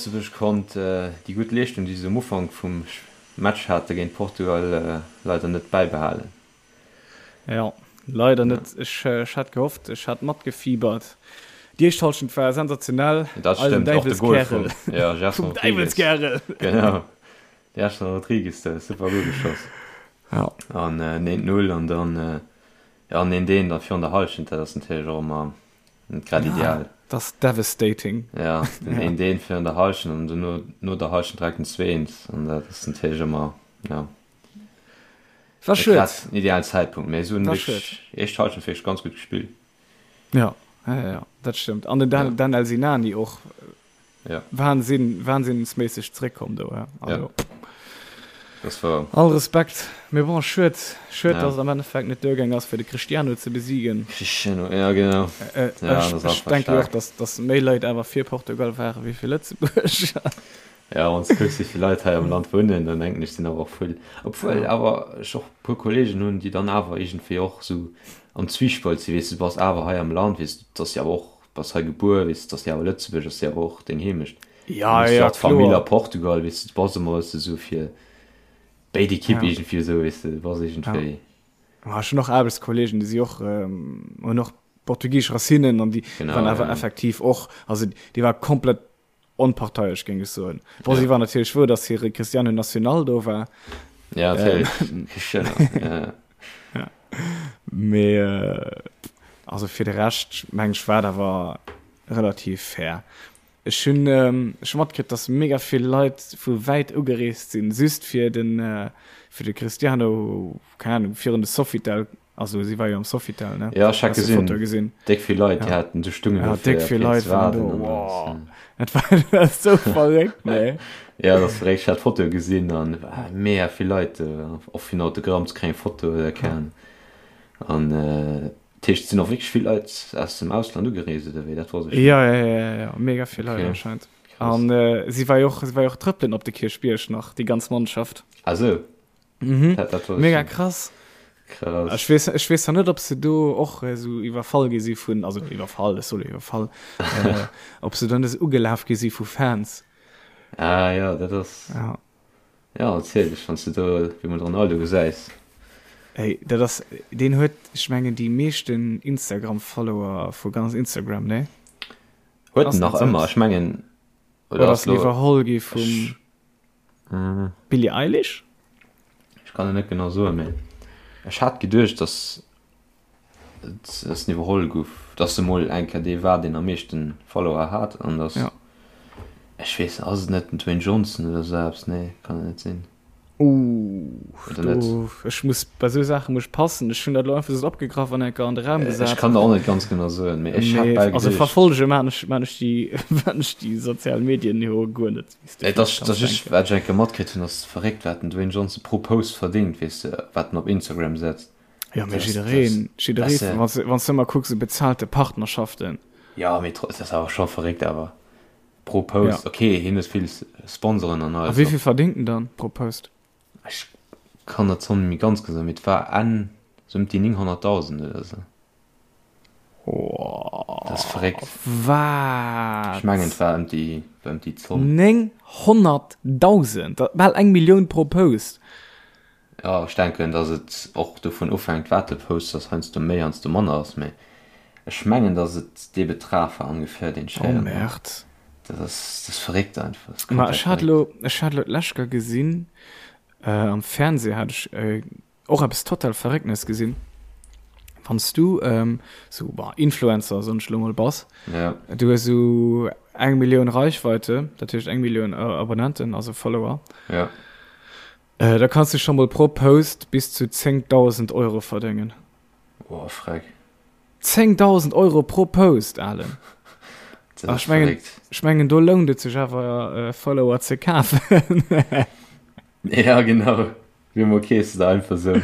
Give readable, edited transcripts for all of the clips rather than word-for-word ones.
Lëtzebuerg konnt déi gutt Leeschtung, déi se um Ufank vum Match hate géint Portugal, leider net bäibehalen. Jo, leider net. Ech hat gehofft, ech hat matgefiebert. Déi éischt Hallschent war sensationell. Dat Eisen stëmmt, och de Gol Däiwelskärel. vum, ja, Gerson Vum Rodrigues. Däiwelskärel! Genau, de Gerson Rodrigues, do super Gol geschoss. Ja. An 1, 0 an dann, ja, an 1, 1 dann virun der Hallschent, dat ass natierlech och ëmmer net grad ideal. Dat ass devastating. Ja, den 1, 1 virun der Hallschent an dono, no der Hallschent direkt den 2, 1 an dat ass natierlech ëmmer, ja. War Net schued. grad den idealen Zäitpunkt, mee se hunn War wierklech schued. éischt Hallschent wierklech ganz gutt gespillt. Ja, ja, ja, ja, dat stëmmt. An den Dan, Ja. Danel Sinani och Ja. Wahnsinn, wahnsinnsméisseg zréckkomm do. Ja. Also, Ja. Das war. All Respekt. Mee bon, schued, schued, Ja. dass et am Endeffekt net duergaang ass, fir de Cristiano ze besiegen. Cristiano, ja genau. Äh, äh, Ja, ech das ech ass einfach denke jo och, staark. dass, dass méi Leit awer fir Portugal ware wéi fir Lëtzebuerg. Ja, wann s de kucks, wéi vill Leit hei am Land wunnen, dann denken ech, sinn awer och vill. Obwuel Ja. awer ech och e puer Kolleegen hunn, déi dann awer iergendwéi och esou am Zwiespalt sinn, weess de, du bass awer hei am Land, weess de, et ass jo awer och, bass hei gebuer, weess de, et ass jo awer Lëtzebuerg, ass jo awer och deng Heemecht. Dann Ja, hues du ja, och d'Famill a kloer. Portugal, weess de, du bass ëmmer, weess de, esou fir béid Ekipp Ja. iergendwéi esou, weess de, du bass Ja. iergendwéi. Ma ech hunn och Aarbechtskollegen, déi si och, hunn och portugisesch Racinen an déi Genau, waren awer ja. effektiv och, also déi war komplett Onparteiesch, géing ech soen. Bon, si Ja. war natierlech frou, datt hire Cristiano Nacional do war. Ja, natierlech. Cristiano, ja. Ja. Mee also fir de Rescht, meng ech, war et awer relativ fair. Ech hunn ech hu matkritt, datt mega vill Leit vu wäit ugereest sinn, just fir den, fir de Cristiano, keng Ahnung, virun de Sofitel Also si war jo am Sofitel, ne? Ja, ech hat Hast du gesinn. Foto gesinn? Déck vill Leit, déi Ja. haten do stungen Ja, do fir déck vill op hien Leit ze waren do. waarden an alles. Wow. Ja. Dat war, dat war sou verréckt, nee. Ja, dat ass verréckt. Ech hat d'Fotoe gesinn an war mega vill Leit do, och fir en Autogramm ze kréien, Foto oder keng Ahnung. An dat heescht, et sinn och wierklech vill Leit aus dem Ausland ugereest oder wéi? Dat wosst ech net. Ja, ja, ja, ja, ja, mega vill Leit Okay, anscheinend. krass. An äh, si war jo och, si war jo och trëppelen op de Kierchbierg nach, déi ganz Mannschaft. Ah sou. Mhm. Dat, dat Mega krass. Krass. Ech weess, ech weess net, ob se do och äh, so iwwerfall gi si vun, also iwwerfall, ech soll iwwerfall, äh, ob se dann esou ugelaf gi si vu Fans. Ah ja, dat ass. Ja. Ja, natierlech, wann s du do wéi mol de Ronaldo gesäis. Ey, dat ass, deen huet, ech mengen, déi meeschten Instagram-Follower vu ganz Instagram, ne? Huet Ass en nach net ëmmer, selbst. ech mengen, Oder oder ass ass lo, iwwerholl gi vum ech, mm. Billie Eilish? Ech kann et net genau soen, mee ech hat geduecht, dass et dass en iwwerholl guff, dass e mol eng Kéier dee war, deen am meeschten Follower hat an dass, Ja. ech weess, ass et net den Dwayne Johnson oder sou eppes? Nee, kann et net sinn. Ooh, Oder net? do, ech muss, bei sou Saache muss ech passen. Ech hunn dat elo einfach sou opgegraff an enker an de Raum Ech gesat. kann der och net ganz genau soen, mee ech hat Mee, bal also geduecht. verfollege maan ech, maan ech déi, maan ech déi sozial Medien jo guer net, wéi s de Et vläicht ass, kanns dass ech, denken. wat ech eng Kéier matkritt hunn, ass verréckt, wat den Dwayne Johnson pro Post verdéngt, weess de, wat en op Instagram setzt. Jo, mee Dat ass, dat jiddereen, ass, jidderee, weess de. wann s, wann s de ëmmer kucks, esou bezahlte Partnerschaften. Jo, mee tro, dat ass awer scho verréckt awer. Pro Post, Ja. ok, hien huet vill Sponsoren an A alles wéi och. vill verdéngt en dann pro Post? Ech kann der d'Zomm net méi ganz genau soen, mee et war Enn sou ëm déi 900.000 oder sou. Dat ass verréckt. Wat? Ech mengen et war ëm déi, war ëm déi Zomm. 900.000? Dat bal eng Millioun pro Post. Jo, ech denken, datt et och dovun ofhänkt, wat de posts, datt heiansdo méi, heiansdo manner ass, mee ech mengen, datt et dee Betrag war ongeféier, deen ech Oh héieren hunn. Merde. Dat ass, dat ass verréckt einfach, dat ass Ma komplett ech hat verréckt. elo, ech hat elo d'lescht Kéier gesinn, am Fernseh hat ech och eppes total Verrécknes gesinn, wann s du esou, bon, Influencer, soen ech elo mol, bass, Ja. du hues esou eng Millioun Reichweite, dat heescht eng Millioun Abonnenten, also Follower, Ja. Da kanns du scho mol pro Post bis zu 10.000 Euro verdéngen. Boah, freck. 10.000 Euro pro Post, Alen. Dat ass Ech mengen, verréckt. ech mengen, do lount et sech awer, Follower ze kafen. Ja, genau. Wéi emol kees de der einfach sou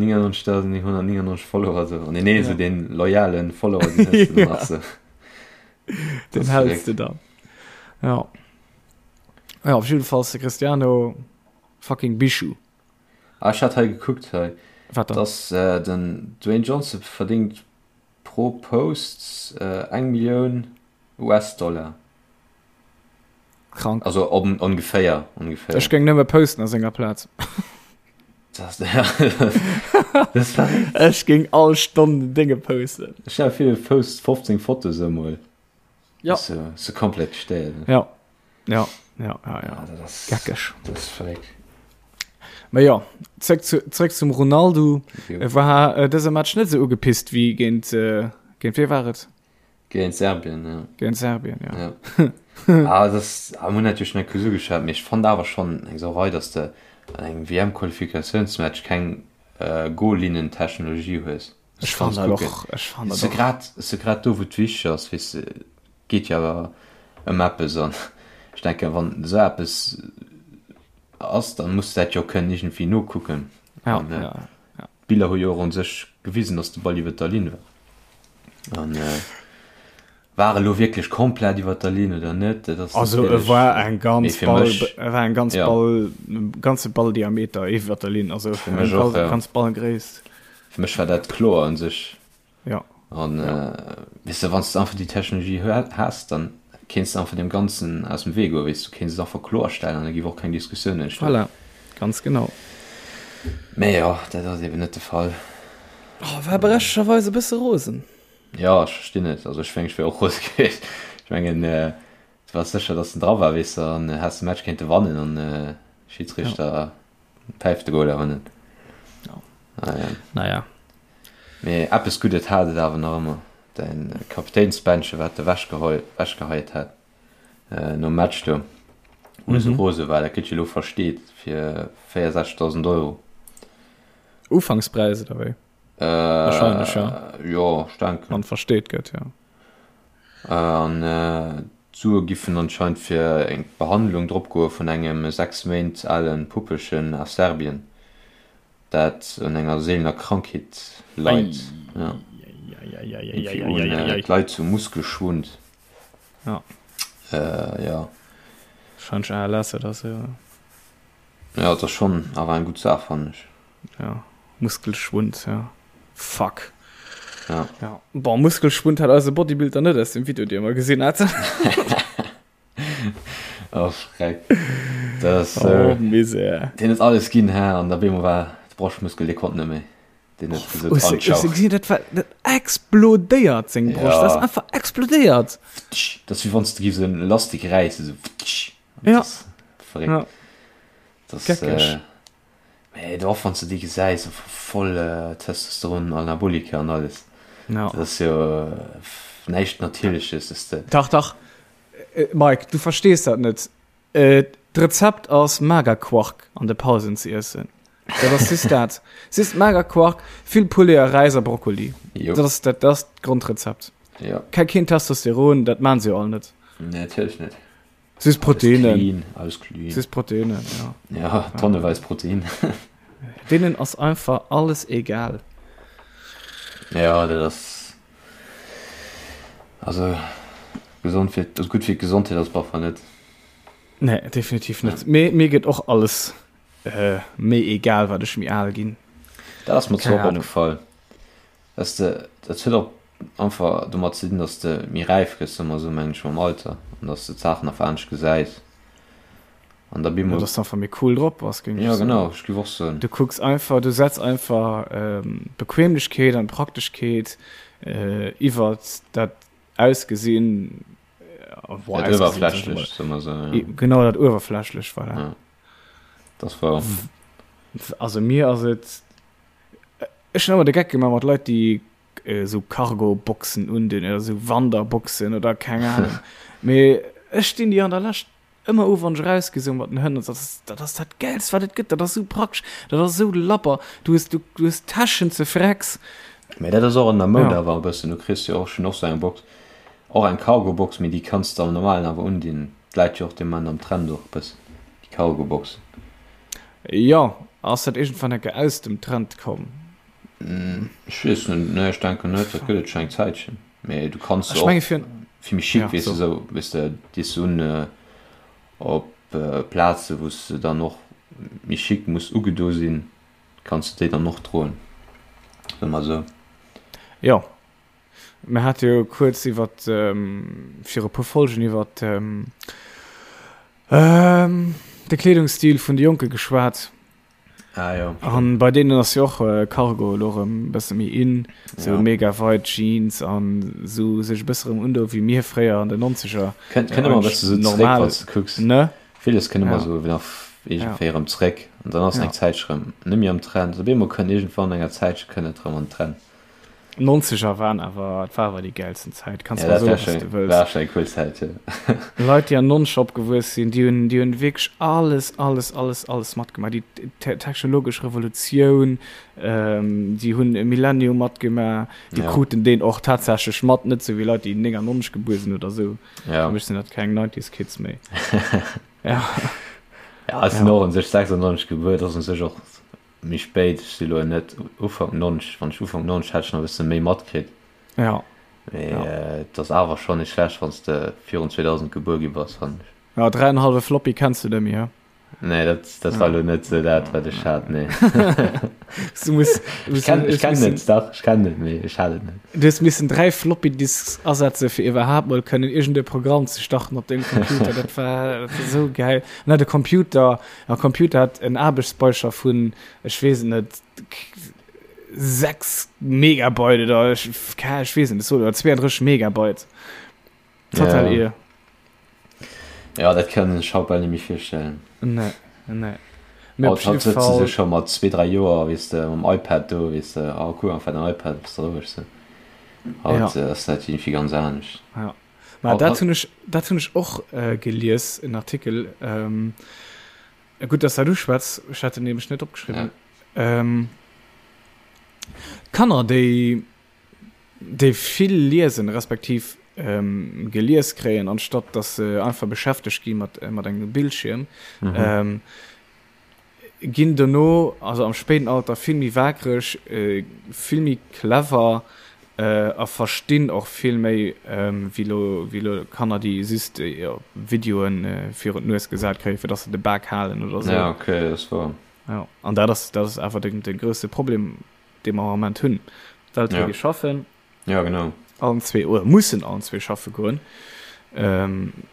999.999 Follower sou. An deen ee sou Ja. deen loyalen Follower, deen hues de dann nach sou. Den Dat ass häls de verréckt. dann. Ja. Ja, op jiddefalls de Cristiano fucking Bijou. Ah, ech hat hei gekuckt hei, Wat dann? dass äh, den Dwayne Johnson verdingt pro Post äh, eng Millioun US-Dollar. Krank. Also on, ongeféier, ongeféier. Ech géing nëmme posten a senger Plaz. Das, ja, das war Ech géing all Stonn den Dénge posten. Stell dir vir, du posts 15 Fotos emol. Ja. So, so komplett gestéiert. Ja. Ja, ja, ja, ja. Ja, dat ass, Geckeg. dat ass verréckt. Mä jo, zréck zu, zréck zum Ronaldo. Jo. E war äh, dëse Match net sou ugepisst wéi géint, äh, géint wee war et? Géint Serbien, ja. Géint Serbien, ja. Ja. ah, das, ah, mir hunn natierlech net kuerz ugeschwat, mee ech fand awer schonn eng Sauerei, dass de an engem WM-Qualifikatiounsmatch keng äh, Goal-Linnen-Technologie hues. Ech fand dat och, ech fand dat och. Grad, se grad do, wou et wichteg ass, weess de, geet jo awer ëm eppes an ech denken, wann esou eppes ass, dann muss de dat jo kënnen iergendwéi nokucken. Ja, An, äh, ja, ja. D'Biller hu jo och un sech gewisen, dass de Ball iwwer der Linn war. An äh, war e lo wierklech komplett iwwer der Linn oder net, dat ass Also e natierlech, war eng mee ganz fir Ball, mech, e war eng ganz ja. Ball, ganze Balldiameter iwwer der Linn, also Fir eng mech och, Ball, ja. ganz Ballgréisst. Fir mech war dat kloer un sech. Ja. An Ja. äh, weess de, wann s de einfach déi Technologie häss, dann kéints de einfach deem Ganzen aus dem Wee goen, weess du, kéints et einfach kloerstellen an da géif och keng Diskussioun entstoen. Voilà, ganz genau. Mee jo, dat ass eben net de Fall. Oh, war berechtegerweis e bësse rosen. Jo, ech verstinn et. Also ech mengen, ech wär och rose gewiescht. Ech mengen, äh, du waars sécher, datt en dra war, weess de, an häss de Match kéinte wannen an äh, Schiedsrichter ja. päift de Goal awer net. Ja. Ah, ja. Naja. Mee eppes Guddet hat et awer nach ëmmer, däin Kapitänsbändche wat de wechgeheit hat äh, nom Match do, wou mm -hmm. rose war, dat gëtt jo lo versteet fir 64.000 Euro. Ufankspräis oder wéi? Äh, Wahrscheinlech, ja. Jo, ech denken. Wann versteet gëtt, ja. An äh, d'Sue giffen anscheinend fir eng Behandlung dropgoe vun engem 6 Méint alen Puppelchen aus Serbien, dat un enger seelener Krankheet leit. Ja. Irgendwie un, äh, Eieieiei. d'leit zu Muskelschwund. Ja. Äh, ja. Wahrscheinlech ALS oder sou. Ja, dat ass schonn awer eng gutt Saach, fannen ech. Ja, Muskelschwund, ja. Fuck. Ja. Ja. Bon, Muskelschwund hat eise Bodybuilder net aus dem Video, dee mer gesinn haten. Oh, Schreck. Das, Oh, äh, Misär. deen huet alles ginn, hä? An da bemol war de Broschtmuskel, dee konnt net méi. Deen huet gesot, Hues an du, hues ciao. du gesinn, dat war, dat explodéiert, seng Broscht. Dat ass Ja. einfach explodéiert. Dat ass wéi wann s de giffs en Elastik räissen, esou. Ja. Dat ass verréckt. Ja. Dat ass, Geckeg. äh, Mee do och wann s de déi gesäis, voll Testosteron, Anabolika an alles. Ja. Dat ass jo näischt Natierleches, dass de. Dach, dach, Mike, du verstees dat net. D'Rezept ass Magerquark an de Pausen ze iessen. Dat ass just dat. Just Magerquark, vill Poulet a Räis a Brokkoli. Jo. Dat ass dat ass d'Grondrezept. Jo. Keen Testosteron, dat maan se jo all net. Nee, natierlech net. Süß Proteine. Alles clean, alles clean. Süß Proteine, ja. Ja, tonneweis Protein. Deenen ass einfach alles egal. Ja, dat ass also gesond fir also gutt fir d'Gesondheet ass et net. Nee, definitiv net. Mir, mir gëtt och alles äh, méi egal, wat ech méi al ginn. Dat ass mer Keine zwar och Ahnung. opgefall. Dass de, dat huet och einfach domat ze dinn, dass de méi räif gëss, soe mer esou, mengen ech, mam Alter an dass de d'Saachen einfach anescht gesäis an da Ja, bemol. dass de einfach méi cool drop bass, géing ech Ja, soen. genau, ech géif och soen. Du kucks einfach, du setz einfach Bequemlechkeet an Prakteschkeet iwwert dat Ausgesinn, Dat Uewerflächlecht, soe mer esou, ja. Genau, dat Uewerflächlecht, voilà. Ja, dat ass wouer. Also mir ass et. Ech hunn ëmmer de Geck gemaach mat Leit, déi esou Cargo-Boxen undinn oder esou Wanderboxen oder keng Ahnung. Mee ech stinn déi an der Lescht ëmmer u wann ech erausgi sou mat den Hënn. Dat ass dat ass dat Gäilst wat et gëtt. Dat ass esou praktesch, dat ass esou labber. Du hues du hues Täschen ze frecks. Mee dat ass och an der Moud Ja. awer e bëssen. Du kriss jo och, ech hunn och sou eng Box, och eng Cargo-Box, mee déi kanns de am normalen awer undinn. D'läit jo och de Moment am Trend och e bëssen, déi Cargo-Boxen. Jo, ass dat iergendwann enke aus dem Trend komm? Ech weess net, nee ech denken net, dat gëtt et scho eng Zäitchen, mee du kanns se Ech och menge fir, fir méi chic, ja weess de, so. sou, weess de, dees du un op Plaze wou s de dann och méi chic muss ugedo sinn, kanns de déi dann och droen, soe mer sou. Jo, Mir hate jo kuerz iwwer, viru puer Folgen iwwer. De Kleedungsstil vun de Jonke geschwat. Ah, jo. An bei deenen ass jo och Cargo elo erëm e bësse méi in, sou Ja. mega weit Jeans an sou sech e bësse erëm undoe wéi mir fréier an den Nonzeger. Kënnt, kënnt ëmmer e bësse sou zréck, Normal, wann s de kucks. ne? Villes kënnt ëmmer Ja. sou nach Ja. iergendwéi erëm zréck an dann ass Ja. eng Zäitche rëm net méi am Trend. Op eemol kënnt iergendwann enger Zäitche kënnt et erëm an den Trend. Nonzeger waren awer, et war awer déi gäilsten Zäit, kanns Ja, mer dat soen war wat s schon, de wëlls. war schon eng cool Zäit, jo. Leit déi an Nonzeger opgewuess sinn, déi hunn, déi hunn wierklech alles, alles, alles, alles matgemaach, déi technologesch Revolutioun, déi hunn e Millennium matgemaach, déi Ja. kruten deen och tatsächlech mat, net sou wéi Leit déi 99 gebuer sinn oder sou. Ja. Fir mech sinn dat keng Nineties Kids méi. Ja. Ja, ech sinn Ja. och un sech 96 gebuer, dat ass un sech och Méi spéit, ech si lo net Ufank 90, wann ech Ufank 90 hätt ech nach e bësse méi matkritt, Ja, mee ja. et ass awer schonn net schlecht wann s de virun 2000 gebuer gi bass, fannen ech. Ja, dräienhallwe Floppy kenns du net méi, he? Nee, dat, dat war lo net sou dat wat ech hat, nee. Du muss, du Ech kenn, hues ech kennen missen, et, dach, ech kennen et, mee ech hat et net. du hues missen 3 Floppy Disks asetze fir iwwerhaapt mol kënnen iergend e Programm ze starten op dengem Computer. Dat war, dat war sou gäil. An hat de Computer, En Computer hat en Aarbechtsspeicher vun, ech weess et net, 6 Megabyte oder ech, ech weess et net, oder 32 Megabyte. Total Ja. ir. Ja, dat kann ech haut bal net méi virstellen. Nee, nee. Mee op Haut, haut jidde sëtze se Fall, scho mat zwee, dräi Joer, weess de, mam iPad do, weess de, oh cool, einfach den iPad, bass de roueg sou. ja, Haut ass dat iergendwéi ganz anescht. ja. Ma Haut, dat haut, hunn ech, dat hunn ech och gelies, en Artikel. Gutt, dass dat uschwätz, ech hat en nämlech net ja. opgeschriwwen. Kanner, déi, déi vill liesen, respektiv gelies kréien, anstatt dass se einfach beschäftegt gi mat, mat engem Bildschierm, Mhm. ginn dono, also am spéiden Alter, vill méi waakreg, vill méi clever a verstinn och vill méi wéi lo, wéi lo Kanner, déi just Videoen virun d'Nues gesat kréien, fir dass se de Bak halen oder sou. Ja, okay, dat ass wouer. Jo, an dat ass, dat ass awer de, de grousse Problem, dee mer am Ament hunn. D'Eltere Ja. gi schaffen. Ja, genau. Allen zwee, oder mussen allen zwee schaffe goen,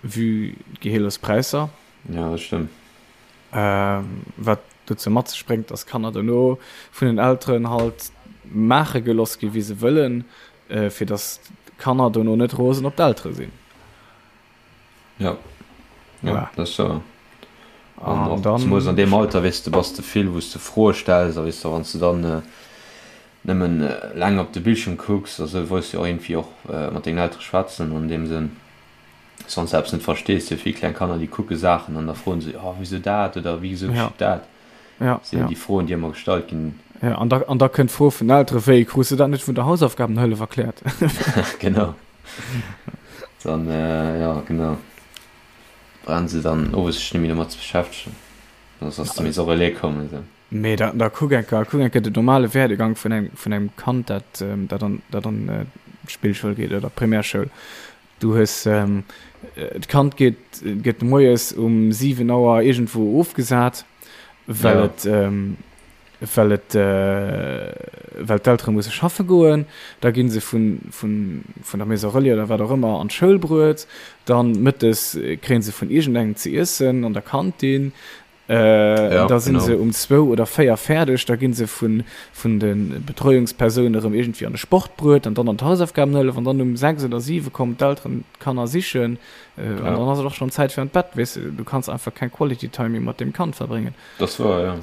vue d'Geheelespräisser. Ja, dat stëmmt. Wat dozou mat sech bréngt, dass Kanner dono vun den Elteren halt maache geloss gi wéi se wëllen, fir dass d'Kanner dono net rosen op d'Eltere sinn. Ja, ja, Voilà. dat ass sou. An An och dann. zemools an deem Alter, weess de, bass de vill, wou s de Froe stells a weess de, wann s de dann nëmmen laang op de Bildschirm kucks a sou, wolls de och iergendwéi och mat dengen Eltere schwätzen an deem Sënn. Wann s de eppes net verstees, jo vill kleng Kanner, déi kucke Saachen an da froen se, oh wisou dat oder wisou Ja. geschitt dat? Ja, Sinn ja. déi Froen, déi ëmmer gestallt ginn. Ja, an da, an da kënnt d'Fro vun den Eltere, wéi, krus de dat net vun der Hausaufgabenhëllef erkläert? Genau. Dann, ja, genau. Brauchen se dann owes sech net méi domat ze beschäftegen. Soss ass de Maison Relais komm, esou. Mee da, da kuck eng Kéier, kuck eng Kéier den normale Werdegang vun engem, vun engem Kand, dat, dat an, dat an d'Spillschoul geet oder d'Primärschoul. Du hues, d'Kand geet, gëtt moies um 7 Auer iergendwou ofgesat, well Ja. et, well et, well d'Eltere musse schaffe goen. Da gi se vun, vun, vun der Maison Relais oder wat och ëmmer an d'Schoul bruet. Dann mëttes kréie se vun iergendengem ze iessen an der Kantin. Ja, Da sinn genau. se um zwou oder véier fäerdeg, da gi se vun, vun de Betreuungspersoune erëm iergendwéi an de Sport bruet an dann an d'Hausaufgabenhëllef an dann um sechs oder siwe kommen d'Elteren d'Kanner sichen an Ja. dann ass et och schonn Zäit fir an d'Bett, weess de. Du kanns einfach keng Quality Time méi mat deem Kand verbréngen. Dat ass wouer, ja.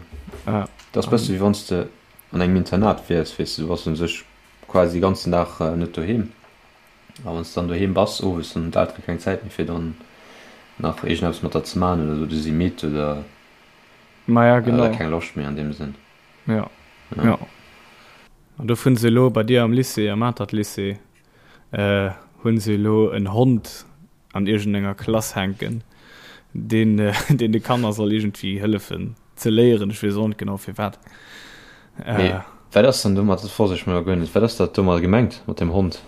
Ja. Dat ass bësse wéi wann s de an engem Internat wiers, weess de, du bass u sech quasi de ganzen Dag net doheem. A wann s de dann doheem bass owes, dann hunn d'Eltere keng Zäit méi fir dann nach iergendeppes mat der ze maachen oder sou, du si midd oder Maja, oder genau. keng Loscht méi an deem Sënn. Ja, Ja. ja. An do hunn se elo bei dir am Lycée, am Atert Lycée, hunn se elo en Hond an iergendenger Klass hänken, deen deen de Kanner soll iergendwéi hëllefen ze léieren. Ech weess och net genau firwat. Mee wat ass dann domat, dat wosst ech mol guer net, wat ass dat domat gemengt mat dem Hond?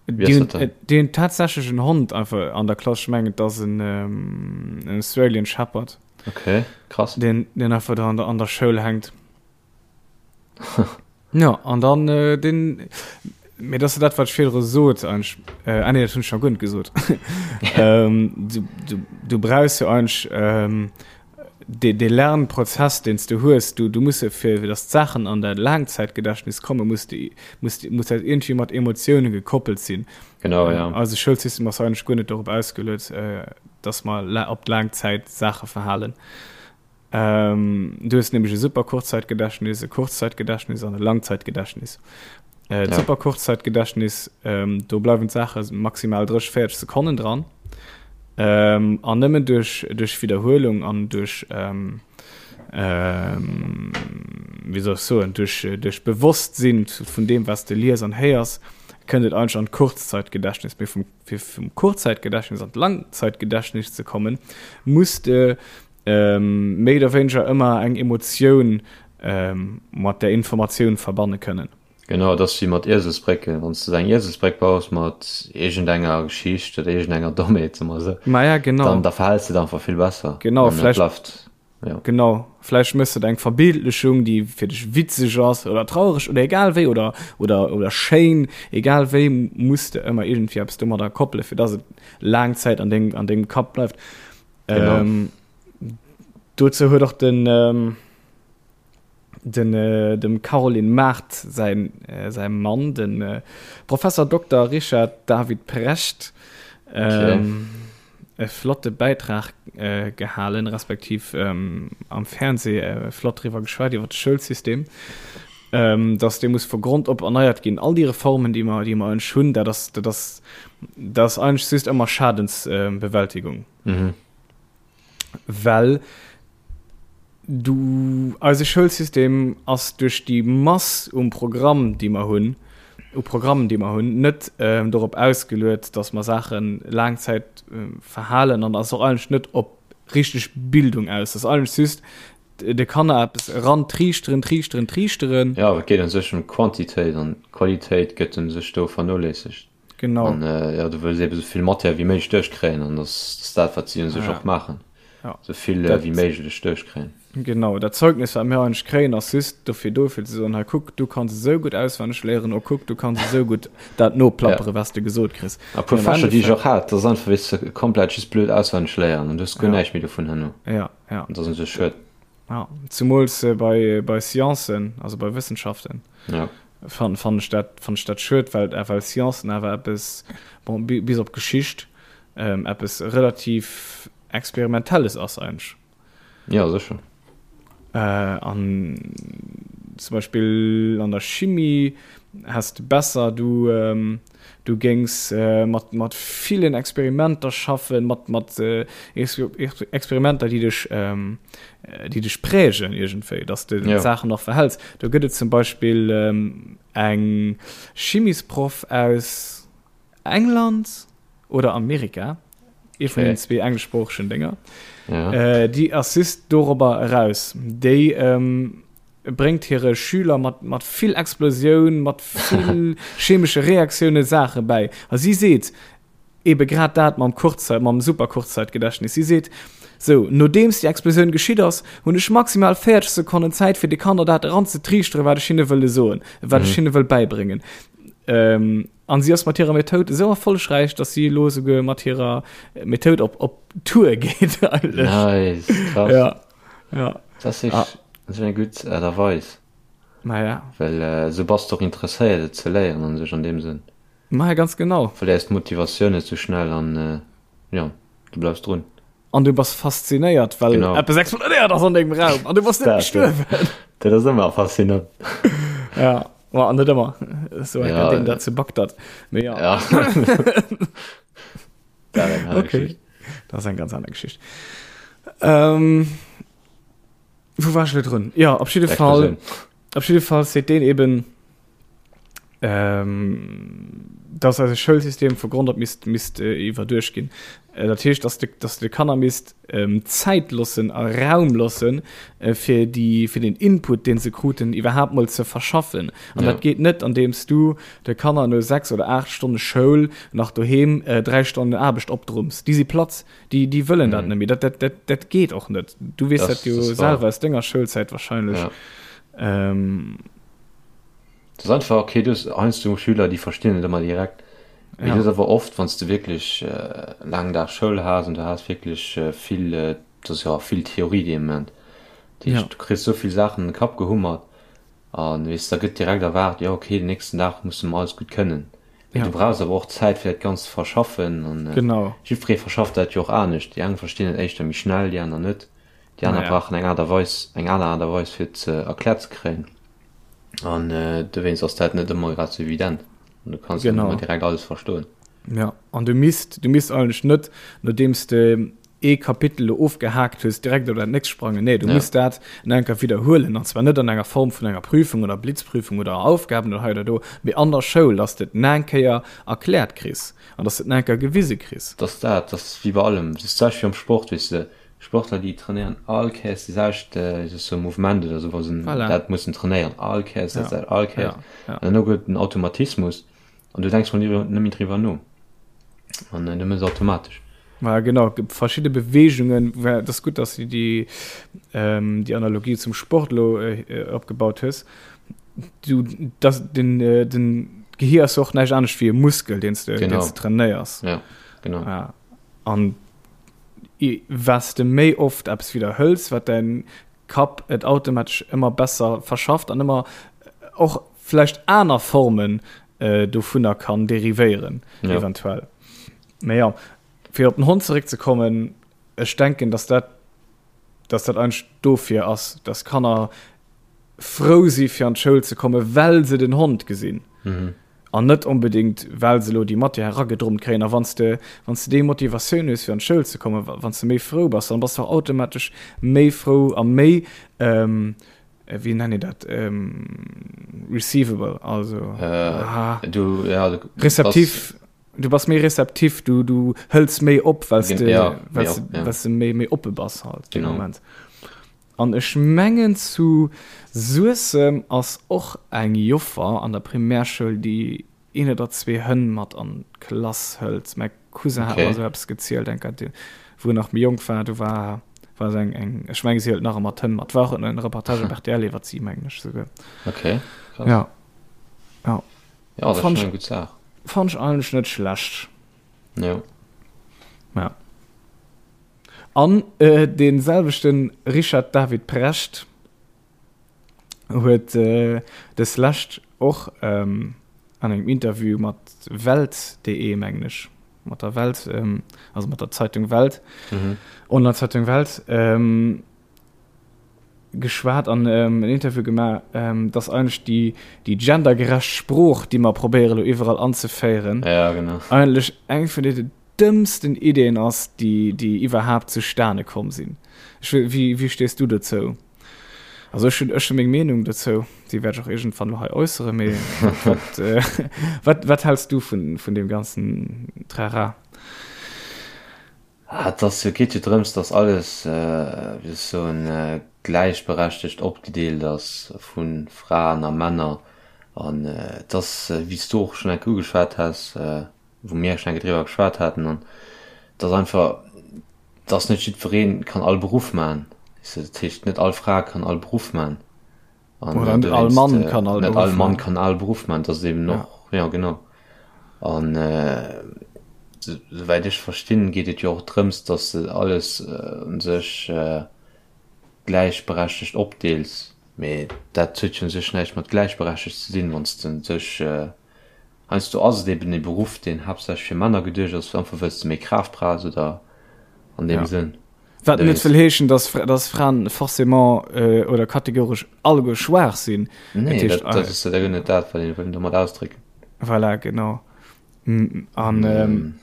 Wéi Déi ass hunn dat dann? déi hunn tatsächlech en Hond einfach an der Klass, ech mengen et ass en en Australian Shepherd, Okay, krass. deen deen einfach do an der an der Schoul hänkt. Ja, an dann äh, den. Mee dat ass jo dat, wat ech virdru sot eigentlech. Ah nee, dat hunn ech nach guer net gesot. Du, du, du brauchs jo eigentlech dee, dee Lernprozess, deen s du hues, du, du muss jo fir, fir datt d'Saachen an däi Laangzäitgedächtnis kommen, muss de, muss, muss dat iergendwéi mat Emotioune gekoppelt sinn. Genau, ja. Eise Schoulsystem ass eigentlech guer net dorop ausgeluet, datt mer op d'laang Zäit Saache verhalen. Du hues nämlech e super Kurzzeitgedächtnis, e Kurzzeitgedächtnis an e Langzeitgedächtnis. Äh, ja. Super Kurzzeitgedächtnis, ähm, do bleiwen d'Saache maximal 30, 40 Sekonnen dran. Ähm, an nëmmen duerch, duerch Wiederhuelung an duerch ähm, ähm, wéi soll ech soen, duerch, duerch Bewosstsinn vun deem, was de lies an héiers, kënnt et eigentlech an d'Kurzzeitgedächtnis. Mee vum, fir vum Kurzzeitgedächtnis an d'Langzeitgedächtnis ze kommen, muss de méi oder wéineger ëmmer eng Emotioun mat där Informatioun verbanne kënnen. Genau, et ass wéi mat Ieselsbrécken. Wann s de eng Ieselsbréck baus mat iergendenger Geschicht oder iergendenger Dommheet, soe mer esou, Maja, genau. dann da verhäls de et einfach vill besser. Genau, An et vläicht, bleift, jo. genau, vläicht méchs de et eng Verbildlechung, déi fir dech witzeg ass oder traureg oder egal wéi oder, oder, oder schéin, egal wéi, muss de ëmmer iergendwéi eppes domadder koppelen, fir dass et laang Zäit an dengem, an dengem Kapp bleift. Genau. Ähm, dozou huet och den, ähm, den, äh, dem Caroline Mart säin, äh, säi Mann, den äh, Professor Dokter Richard David Precht, ähm, okay. e flotte Bäitrag äh, gehalen, respektiv ähm, am Fernseh äh, flott driwwer geschwat iwwer de Schoulsystem, ähm, dass dee muss vu Grond op erneiert ginn. All déi Reformen, déi mer, déi mer eigentlech hunn, dat ass, dat ass, dat ass eigentlech just ëmmer Schadensbewältigung. Mhm. Well du, eise Schoulsystem ass duerch déi Mass um Programm, déi mer hunn, u Programmen, déi mer hunn, net ähm, dorop ausgeluet, dass mer Saache laang Zäit äh, verhalen an ass och eigentlech net op richteg Bildung aus. Dat ass eigentlech just de Kanner eppes erantriichteren, triichteren, triichteren. Jo, et geet u sech ëm Quantitéit an d'Qualitéit gëtt u sech do vernoléissegt. Genau. An jo, du wëlls eebe sou vill Matière wéi méiglech duerchkréien an dat ass dat, wat si u sech och maachen, sou vill wéi méiglech duerchkréien. Genau, dat Zeugnis, wat mir eigentlech kréien, ass just dofir do, fir ze soen, hei kuck, du kanns esou gutt auswenneg léieren, oh kuck, du kanns esou gutt dat noplappere, wat s de gesot kriss. A puer Fächer, déi ech och hat, dat ass einfach, weess de, komplett just blöd auswenneg léieren an du hues guer näischt méi dovun herno. Ja. Ja. Dat ass un sech schued. Ja, zumools äh, bei, bei Sciencen, also bei Wëssenschaften. Ja. Fand, fand ech dat, fand ech dat schued, well, äh, well Sciencen awer eppes, bon, bis op Geschicht, ähm, eppes relativ Experimentelles ass eigentlech. Ja, sécher. Äh, an zum Beispill an der Chimie häss de besser, du, ähm, Du géings mat mat villen Experimenter schaffen, mat mat Experimenter, déi dech déi dech prägen iergendwéi, dass de ja. d'Saachen nach verhäls. Do gëtt et zum Beispill eng Chimisproff aus England oder Amerika, ee vun den zwee engleschsproochegen Dénger, ja. déi ass just dorobber eraus. Déi bréngt hire Schüler mat, mat vill Explosioun, mat vill chemesche Reaktioune Saache bäi. A si seet ebe grad dat mam Kurzzeit, mam Super-Kurzzeitgedächtnis. Si seet, Sou, nodeems déi Explosioun geschitt ass, hunn ech maximal 40 Sekonnen Zäit, fir de Kanner dat eranzetriichteren, wat ech hinne wëlle soen, wat ech hinne wëll bäibréngen. Ähm, an si ass mat hirer Methoud esou erfollegräich, datt si elo esouguer mat hirer Methoud op, op Tour geet eigentlech. Nice, krass. Ja. Ja. Dat ass ah. dat ass eng gutt Aart a Weis. Ma ja. Well äh, sou bass de och interesséiert et ze léieren an sech an deem Sënn. Ma ja, ganz genau. Verléiers d'Motivatioun net sou schnell an äh, ja, du bleifs drun. An du bass faszinéiert, well genau. eppes explodéiert ass an dengem Raum an du bass net gestuerwen. Dat ass ëmmer faszinant. Ja, ma an net ëmmer. So ja, den dat zu Bagdad. Mee ja. ja. Dat eng aner okay. Geschicht. Dat ass eng ganz aner Geschicht. Ähm, wou war ech lo drun? Ja, op jidde Fall, op jidde Fall seet deen eben, ähm, dass eise Schoulsystem vu Grond op misst, misst äh, iwwerduecht ginn. Äh, dat heescht, dass de, dass de Kanner misst ähm, Zäit loossen a Raum loossen, äh, fir déi, fir den Input, deen se kruten, iwwerhaapt mol ze verschaffen. An ja. dat geet net, andeems du de Kanner no 6 oder 8 Stonne Schoul nach doheem äh, 3 Stonnen Aarbecht opdrumms. Déi si platt, déi, déi wëllen mhm. dat net méi. Dat, dat, dat, dat geet och net. Du weess dat, dat jo selwer aus denger Schoulzäit wahrscheinlech. Ja. Ähm. Et ass einfach, okay, du hues heiansdo Schüler, déi verstinn et ëmmer direkt. Mee du hues awer oft, wann s de wierklech laangen Dag Schoul has an du has wierklech vill, et ass jo och vill Theorie dee Moment, dat heescht, du kriss esou vill Saachen an de Kapp gehummert an, weess, da gëtt direkt erwaart, jo okay, den nächsten Dag muss de mer alles gutt kënnen. Mee du brauchs awer och Zäit, fir dat Ganzt ze verschaffen an jiddweree verschafft dat jo och anescht. Déi eng verstinn et éischter méi schnell, déi aner net. Déi aner brauchen eng Aart a Weis, eng aner Aart a Weis, fir et ze erkläert ze kréien. An dowéinst ass dat net ëmmer grad sou evident. An du kanns net ëmmer direkt alles verstoen. Ja, an du misst, du misst eigentlech net, nodeems de ee Kapitel elo ofgehaakt hues, direkt op dat nächst sprangen. Nee, du muss dat nach eng Kéier widderhuelen. An zwar net an enger Form vun enger Prüfung oder Blitzprüfung oder Aufgaben oder hei oder do, mee an der Schoul, dass de et nach eng Kéier erkläert kriss an dass de et nach eng Kéier gewise kriss. Dass dat, dat ass wéi bei allem, dat ass d'selwecht wéi am Sport, weess de. Sportler déi trainéieren all Kéiers déi selwecht sou Mouvement oder sou wa se voilà. dat mussen trainéieren all Kéiers dat ja. all Kéiers ja. Ja. an dann gëtt den Automatismus an du denks mol net méi driwwer no an du mëss automatesch. Ja, genau verschiedene Bewegungen das gut dass du die ähm, die Analogie zum Sport lo äh, opgebaut hues du das den äh, den Gehir ass och näischt anescht wéi e Muskel den du, den du trainéiers ja, genau ja. an Wat s de méi oft eppes widderhëls, wat däin Kapp et automatesch ëmmer besser verschafft an ëmmer och vläicht aner Formen dovunner kann derivéieren, eventuell. Mä jo, fir op den Hond zeréckzekommen, ech denken, dass dat, dass dat eigentlech dofir ass, dass Kanner frou si fir an d'Schoul ze kommen, well se den Hond gesinn. An net onbedéngt, well se elo déi Matière eragedrummt kréien. A wann s de, wann s de déi Motivatioun hues, fir an d'Schoul ze kommen, wann s de méi frou bass, dann bass de och automatesch méi frou a méi, wéi nennen een dat, receivable, also, Du, ja, du receptif, du bass méi receptif, du, du hëls méi op, well s de, well s de, well s de méi, méi oppe bass halt dee Moment. An ech mengen zu Suessem ass och eng Joffer an der Primärschoul déi een oder zwee Hënn mat an d'Klass hëlt. Mäi Cousin hat mer esou eppes gezielt eng Kéier, wou en nach méi jonk war. Do war war se eng eng ech menge si hëlt nach ëmmer d'Hënn mat. War och en Reportage op rtl iwwert si mengen ech souguer. Okay, krass. Ja. Ja. Ja, dat ass schonn eng gutt Saach. Fannt ech eigentlech net schlecht. Jo. Ja. An dee selwechte Richard David Precht huet des Lescht och an engem Interview mat Welt.de, mengen ech, mat der Welt, also mat der Zeitung Welt, Online-Zeitung Welt, geschwat an en Interview gemaach, dass eigentlech déi, déi gendergerecht Sprooch, déi mer probéiere lo iwwerall anzeféieren, ja, genau. eigentlech eng vun de dëmmsten Ideen ass, déi, déi iwwerhaapt zustane komm sinn. Ech wëll, wéi, wéi stees du dozou? Also ech hunn, ech hunn meng Meenung dozou, déi wäert ech och iergendwann lo hei äusseren, mee wat, wat, wat häls du vun, vun deem ganzen Trara? Ah, et ass jo, geet jo drëms, datt alles, wéi soll ech soen, gläichberechtegt opgedeelt ass vu Fraen a Männer. An et ass, wéi s du och schonn eng Kéier ugeschwat has, wou mir schonn eng Kéier driwwer geschwat haten, an et ass einfach, datt net jiddweree kann all Beruff maachen. Weess de, dat heescht, net all Fra kann all Beruff maachen. An Oder net all Mann kann all Net all Mann kann all Beruff man, dat eben ja. noch ja genau. An äh, soweit ech verstinn, geet et jo och drëms, dass de alles äh, un sech äh, gläichberechtegt opdeels. Mee dat huet jo un sech näischt mat gläichberechtegt ze dinn, wann s de un sech äh, heiansdo ass et eben e Beruff, deen haaptsächlech fir Männer geduecht ass, einfach wëlls de méi Kraaft brauchs oder an deem ja. Sënn. Wat net wëll heeschen, dass, dass Fraen forcément äh, oder kategoresch alleguer schwaach sinn. Nee, dat, dat ass ja net dat, wat een wëll domat ausdrécken. Voilà, genau. An mm. ähm,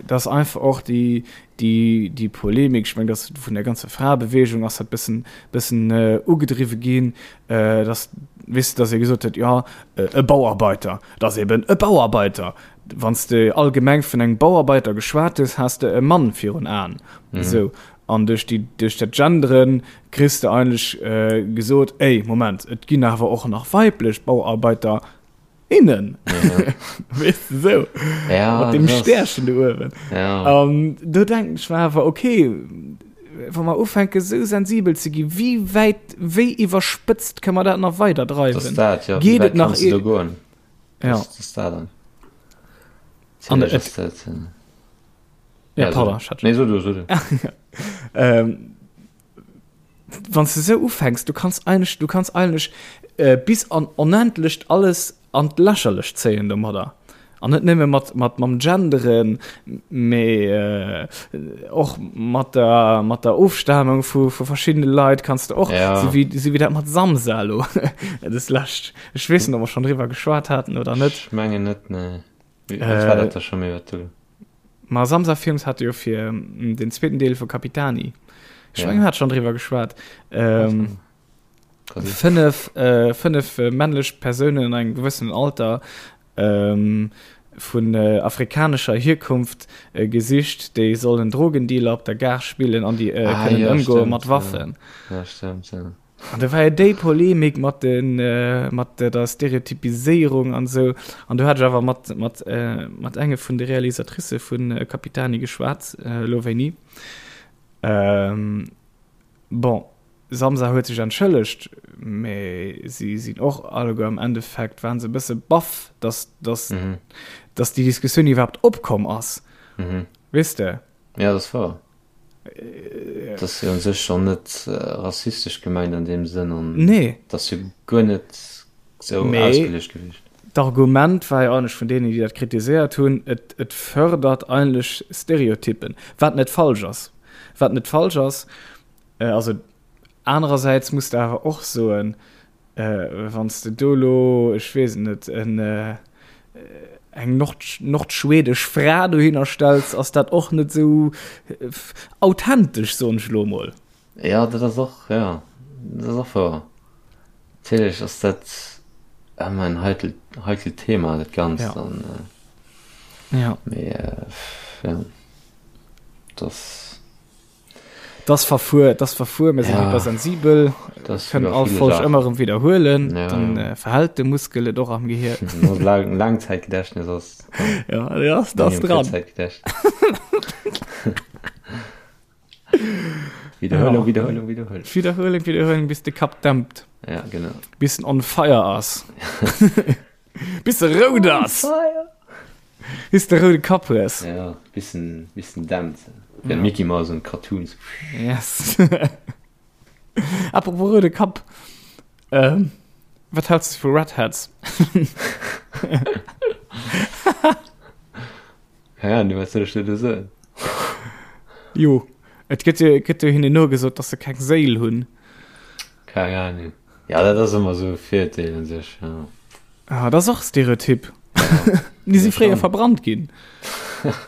das einfach och déi, déi, déi Polemik, ich mein, das vun der ganzer Fraebewegung ass dat bëssen, bëssen äh, ugedriwwe ginn, äh, dass, weess de, dass ee gesot huet, ja, äh, e Bauarbeiter, dat ass eben e Bauarbeiter. Wann s de allgemeng vun engem Bauarbeiter geschwat hues, has de e Mann virun Aen. Mhm. Esou. An duerch déi, duerch dat Genderen kriss de eigentlech äh, gesot, ey, Moment, et ginn awer och nach weiblech Bauarbeiter innen. Ja. Weess de, esou. Ja, Mat dem das- Stärchen do uewen. Ja. An do denken ech mer awer, okay, wa mer ufänke sou sensibel ze gi, wéi wäit, wéi iwwerspëtzt kënne mer dat nach weider dreiwen? Das dat, ja. Geet Wéi et wäit nach kanns du do goen? Ja. Das, das dat dann. An Natierlech et- ass dat. Ja, Ja, pardon, so. ich hat Nee, so du, so du. ähm, wann du so ufängst, du kannst eigentlich, du kannst eigentlich äh, bis an onendlecht alles an d'Lächerlecht zéien domadder. An net nëmme mat, mat mam Genderen, mee äh, och mat der, mat der Ofstamung vu, vu verschiddene Leit kanns du och, Ja. so wéi, so wéi dat mat Samsa lo, das lescht. Ech weess net, ob mer schonn driwwer geschwat haten oder net. Ech mengen net, nee. Wéi, wat war dat da scho méi, wat du. Ma Samsa Films hat jo fir den zweeten Deel vu Capitani. Ech Ja. mengen, hat schonn driwwer geschwat. Ähm, Kann sinn. fënnef, äh, fënnef äh, männlech Persounen an engem gewëssenen Alter ähm, vun äh, afrikanescher Hierkunft äh, gesicht, déi sollen Drogendealer op der Gare spillen an déi äh, Ah, kënnen ja, ëmgoe stimmt, mat ja. Waffen. Ja, stimmt, ja. An da war jo déi Polemik mat den, äh, mat der Stereotypiséierung an esou. An do hat ech awer mat, mat, äh, mat enge vun de Realisatricë vun äh, Capitani geschwat, äh, elo wéini. Ähm, bon, Samsa huet sech entschëllegt, mee si sinn och alleguer am Endeffekt, waren se e bësse baff, dass, dass, Mhm. dass déi Diskussioun iwwerhaapt opkomm ass. Mhm. Weess de? Ja, dat ass wouer. Dat ass jo u sech schonn net rassistesch gemengt an deem Sënn an Nee. dat ass jo guer net esou Mee ausgeluecht gewiescht. d'Argument war jo eigentlech vun deenen, déi dat kritiséiert hunn, et, et fërdert eigentlech Stereotyppen, wat net falsch ass. Wat net falsch ass. Also anerersäits muss de awer och soen, Wann s de do elo, ech weess et net, en, eng nord, nordschwedesch Fra dohinner stells, ass dat och net esou authentesch, soen ech elo emol. Jo, dat ass och, jo, dat ass och wouer. Natierlech ass dat ëmmer en heikel, heikelt Thema, dat Ganzt. Ja. An, Ja. mee, jo, dat ass. Das verfuer, das verfuer, mir sinn Ja. hypersensibel, Das kënnen iwwer all viele Folg Sachen. ëmmer erëm widderhuelen, Ja, dann ja. äh, verhält de Muskel et och am Gehir. No Lang Langzeitgedächtnis ass Ja, ja, das engem dran. Kurzzeitgedächtnis. Wiederholung, Ja. Wiederholung, Wiederholung. Wiederhuelen, wiederhuelen, bis de Kapp dämpt, Ja, genau. bis en on fire ass. Bis de rout ass. Bis de roude Kapp hues. Ja, bis en, bis en dämpt. Wéi Mickey Mouse an Cartoons. Yes. Apropos roude Kapp. Ähm, wat hältst du vu Redheads? Keine Ahnung, wat soll ech dir do soen? Jo, et gëtt jo, gëtt jo hinnen nogesot, dass se keng Séil hunn. Keng Ahnung. Ja, dat ass ëmmer esou e Virurteel un sech, ja. Ah, dat ass och Stereotyp. Ja. Déi si Ja, fréier schon. verbrannt ginn.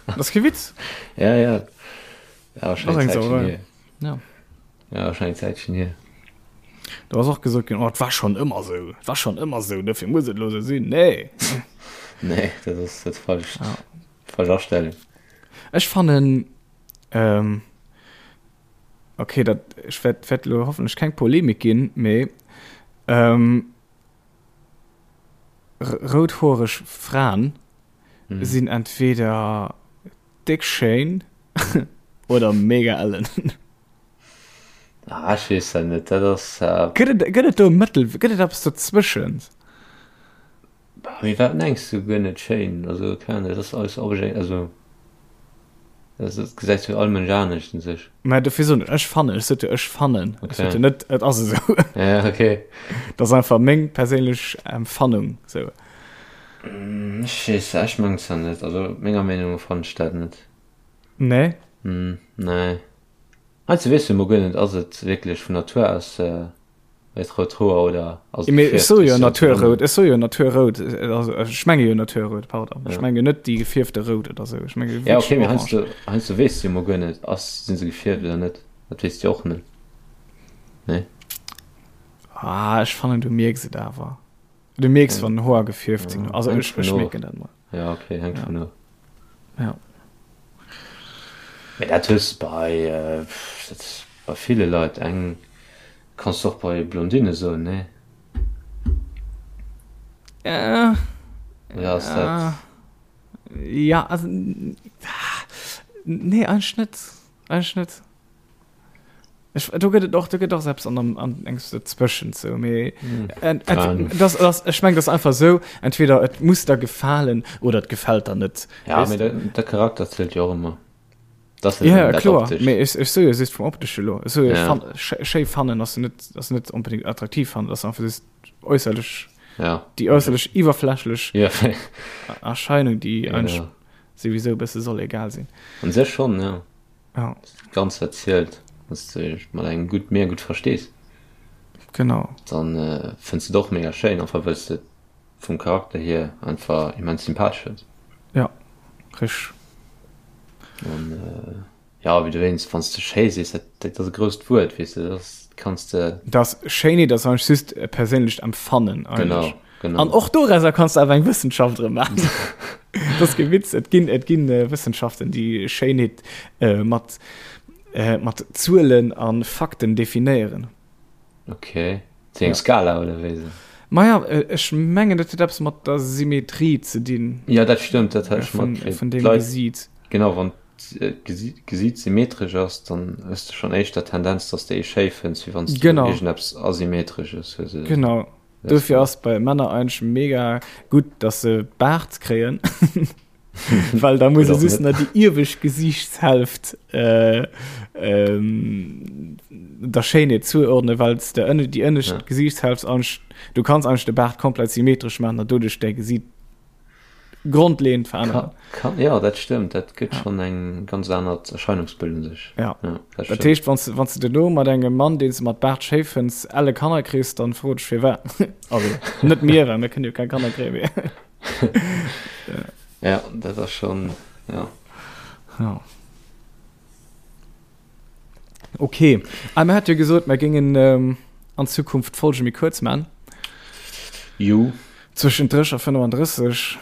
Dat ass kee Witz. Ja, ja. Ja, wahrscheinlich Ass eng Zäitchen Sauerei. hier. Ja. Ja, wahrscheinlich Zäitchen hier. Do ass och gesot ginn, oh, et war schonn ëmmer esou, et war schonn ëmmer esou, dofir muss et elo esou sinn. Nee. Nee, dat ass dat falscht. Ja. Falsch Astellung. Ech fannen, ähm, Okay, dat ech wäert wäert elo hoffentlech keng Polemik ginn, mee ähm, routhoereg Fraen mm. sinn entweder déck schéin oder mega ellen. Ah, ech weess dat net, dat ass. Äh... Gëtt et, gëtt et do e Mëttel, gëtt et eppes dozwëschen? Mee wat mengs du guer net schéin? Also keng Ahnung, dat ass alles obje also dat gesäit jo all Mënsch anescht un sech. Mä dofir soen ech, ech fannen, ech sot jo ech fannen, ech sot jo net et ass esou. Ja okay. Dat ass einfach meng perséinlech Empfannung sou. Ech weess, ech mengen zwar net, also menger Meenung no fannen ech dat net. Nee? Nee. Heiansdo weess du emol guer net, ass et wierklech vun Natur aus Hues rout Hoer oder ass et Mee ech soe jo gefierft? Naturrout, ech soe jo Naturrout, also ech menge jo Naturrout, pardon. Ech Ja. menge net déi gefierfte Rout oder sou, ech menge Ja, wierklech okay, mee orange. heiansdo, heiansdo weess du jo mol guer net, ass, sinn se gefierft oder net. Dat weess du jo och net. Nee? Ah, ech fannen du mierks et awer. Du mierks Ja. wann Hoer gefierft sinn. Ja, Also hänkt ech, vun ech of. mierken dat mol. Ja, okay, hänkt Ja. vun of. Ja. Mee dat hues de bei, dat bei ville Leit. Eng kanns de och bei Blondinne soen, nee? Äh, Oder ass dat. Ja, also, nee, eigentlech net. Eigentlech net. Ech, do gëtt et och, do gëtt och eppes an, an engs dazwëschent sou, mee ent, ent, das, das, ech meng, das einfach sou, entweder et muss der gefalen oder et gefält der net. Ja, mee de, de Charakter zielt jo och ëmmer. Das ja, ja kloer, mee ech, ech sou jo just vum optesche lo. Ech sou jo, ja. schéi fannen ass net, ass net onbedingt attraktiv fannen, ass einfach just äusserlech, ja. déi äusserlech iwwerflächlech ja. Erscheinung, déi ja, eigentlich ja. souwisou e bësse soll egal sinn. An sech schon, ja. Ja. Ganz wat zielt, dass du dech mat engem gutt mega gutt verstees. Genau. Dann äh, fënns du et och mega schéin, einfach wëlls de vum Charakter hier einfach immens sympathesch fënns. Ja, richteg. An äh, ja, wéi du wéinst, wann s de schéi sees, dat, dat ass e grousst Wuert, weess de, dat ass, kanns de. Dat Schéinheet ass eigentlech just e perséinlecht Empfannen eigentlech. Genau. Genau. An och dorauser kanns du awer eng Wëssenschaft erëm maachen. Dat ass kee Witz. Et ginn, et ginn äh, Wëssenschaften, déi Schéinheet äh, mat, äh, mat Zuelen a Fakten definéieren. Okay. Zu eng ja. Skala oder wéi se? Maja, äh, ech mengen, dat huet eppes mat der Symmetrie ze dinn. Ja, dat stëmmt, dat hat ech matkritt. Vun dem Gesiit. Genau, wann d'Gesiit symmetresch ass, dann hues de schonn éischter Tendenz, dass de ee schéi fënns, wéi wann s du iergendeppes Asymmetresches hues. Genau. Dofir ass bei Männer eigentlech mega gutt, dass se Baart kréien, well da muss se just nach déi iewescht Gesiichtshälft äh, ähm, der Schéinheet zuordnen, well s de ënne déi ënnescht ja. Gesiichtshälft eigentlich, du kanns eigentlich de Baart komplett symmetresch maachen, an doduerch däi Gesiit grondleeënd veränneren. Kann, kann, ja, dat stëmmt, dat gëtt ja. schon eng ganz anert Erscheinungsbild un sech. Ja. ja dat, dat heescht, wann du, wann du duerno mat engem Mann, deen s du mat Baart schéi fënns, elle Kanner kriss, dann fro dech firwat. Also net mir, well mir kënnen jo keng Kanner kréien. Mee. ja. ja, dat ass schon, ja. Ja. Okay. Ah, mir hat jo gesot, mir géingen ähm, an Zukunft d'Folge méi kuerz man. Jo. Zwëschen 30 a 35.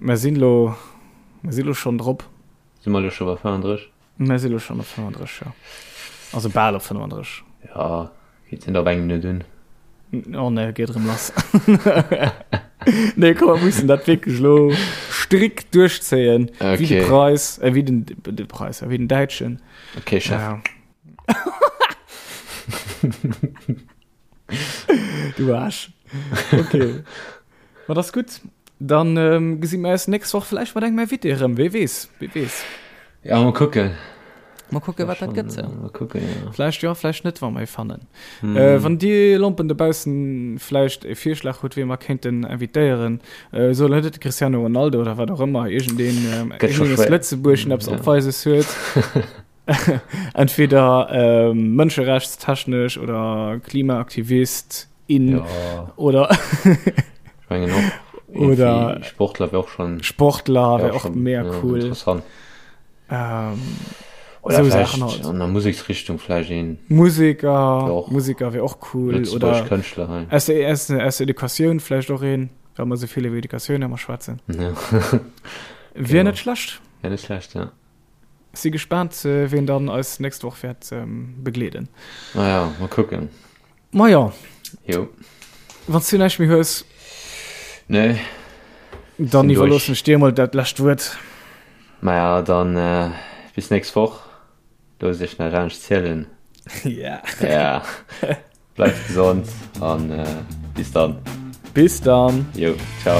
Mir sinn lo, mir sinn lo schonn drop. Si mer lo scho bei 35? Mir si lo schonn op 35, jo. Also bal op 35. Ja, geet net op eng Minutt un. Oh ne, geet erëm lass. Nee, komm, mir mussen dat wierklech lo strikt duerchzéien. Okay. Wéi de Preis, äh, wéi den, de Preis, wéi den Däitschen. Okay, Chef. Ja. Du Arsch. Okay. Ma das gutt. Dann ähm, gesi mir eis nächst Woch vielleicht mat engem Invité erëm. Wee weess, wee weess. Ja, mal kucken. Mal kucken, wat dat gëtt. Ja. Mal kucken, ja. Vläicht jo, vläicht net, wa mer ee fannen. Mm. Äh, wann dir Lompen dobaussen vläicht e Virschlag hutt, wee mer kéinten invitéieren, äh, soll net de Cristiano Ronaldo oder wat och ëmmer, iergendeen, ähm, Gëtt scho iergendeen aus schwéier. Lëtzebuerg en eppes Ja. Opweises huet. Entweder ähm, mënscherechtstechnesch oder Klimaaktivist in Ja, oder ich mengen och. Oder- Irgendwie Sportler wär och schon, Sportler wär wär och schon, mega ja, cool. interessant. Ähm, Oder So vielleicht Sachen halt. an der Museksrichtung vielleicht een Musiker, Wär och Musiker wär och cool. Lëtzebuergesch Oder Kënschtler hei. aus der, aus der, aus der Educatioun vläicht och een, well mer esou vill iwwer Educatioun ëmmer schwätzen. Ja. Wier Genau. net schlecht. Wär net schlecht, ja. Si gespaant, ween dann eis nächst Woch wäert begleeden. Naja, mol kucken. Majo. Jo. Wann s du näischt méi hues. Nee. Dann iwwerloossen ech dir emol dat lescht Wuert. Maja, dann bis nächst Woch. Loosst iech näischt anescht zielen. Ja. Ja. Bleift gesond an bis dann. Bis dann. Jo, ciao.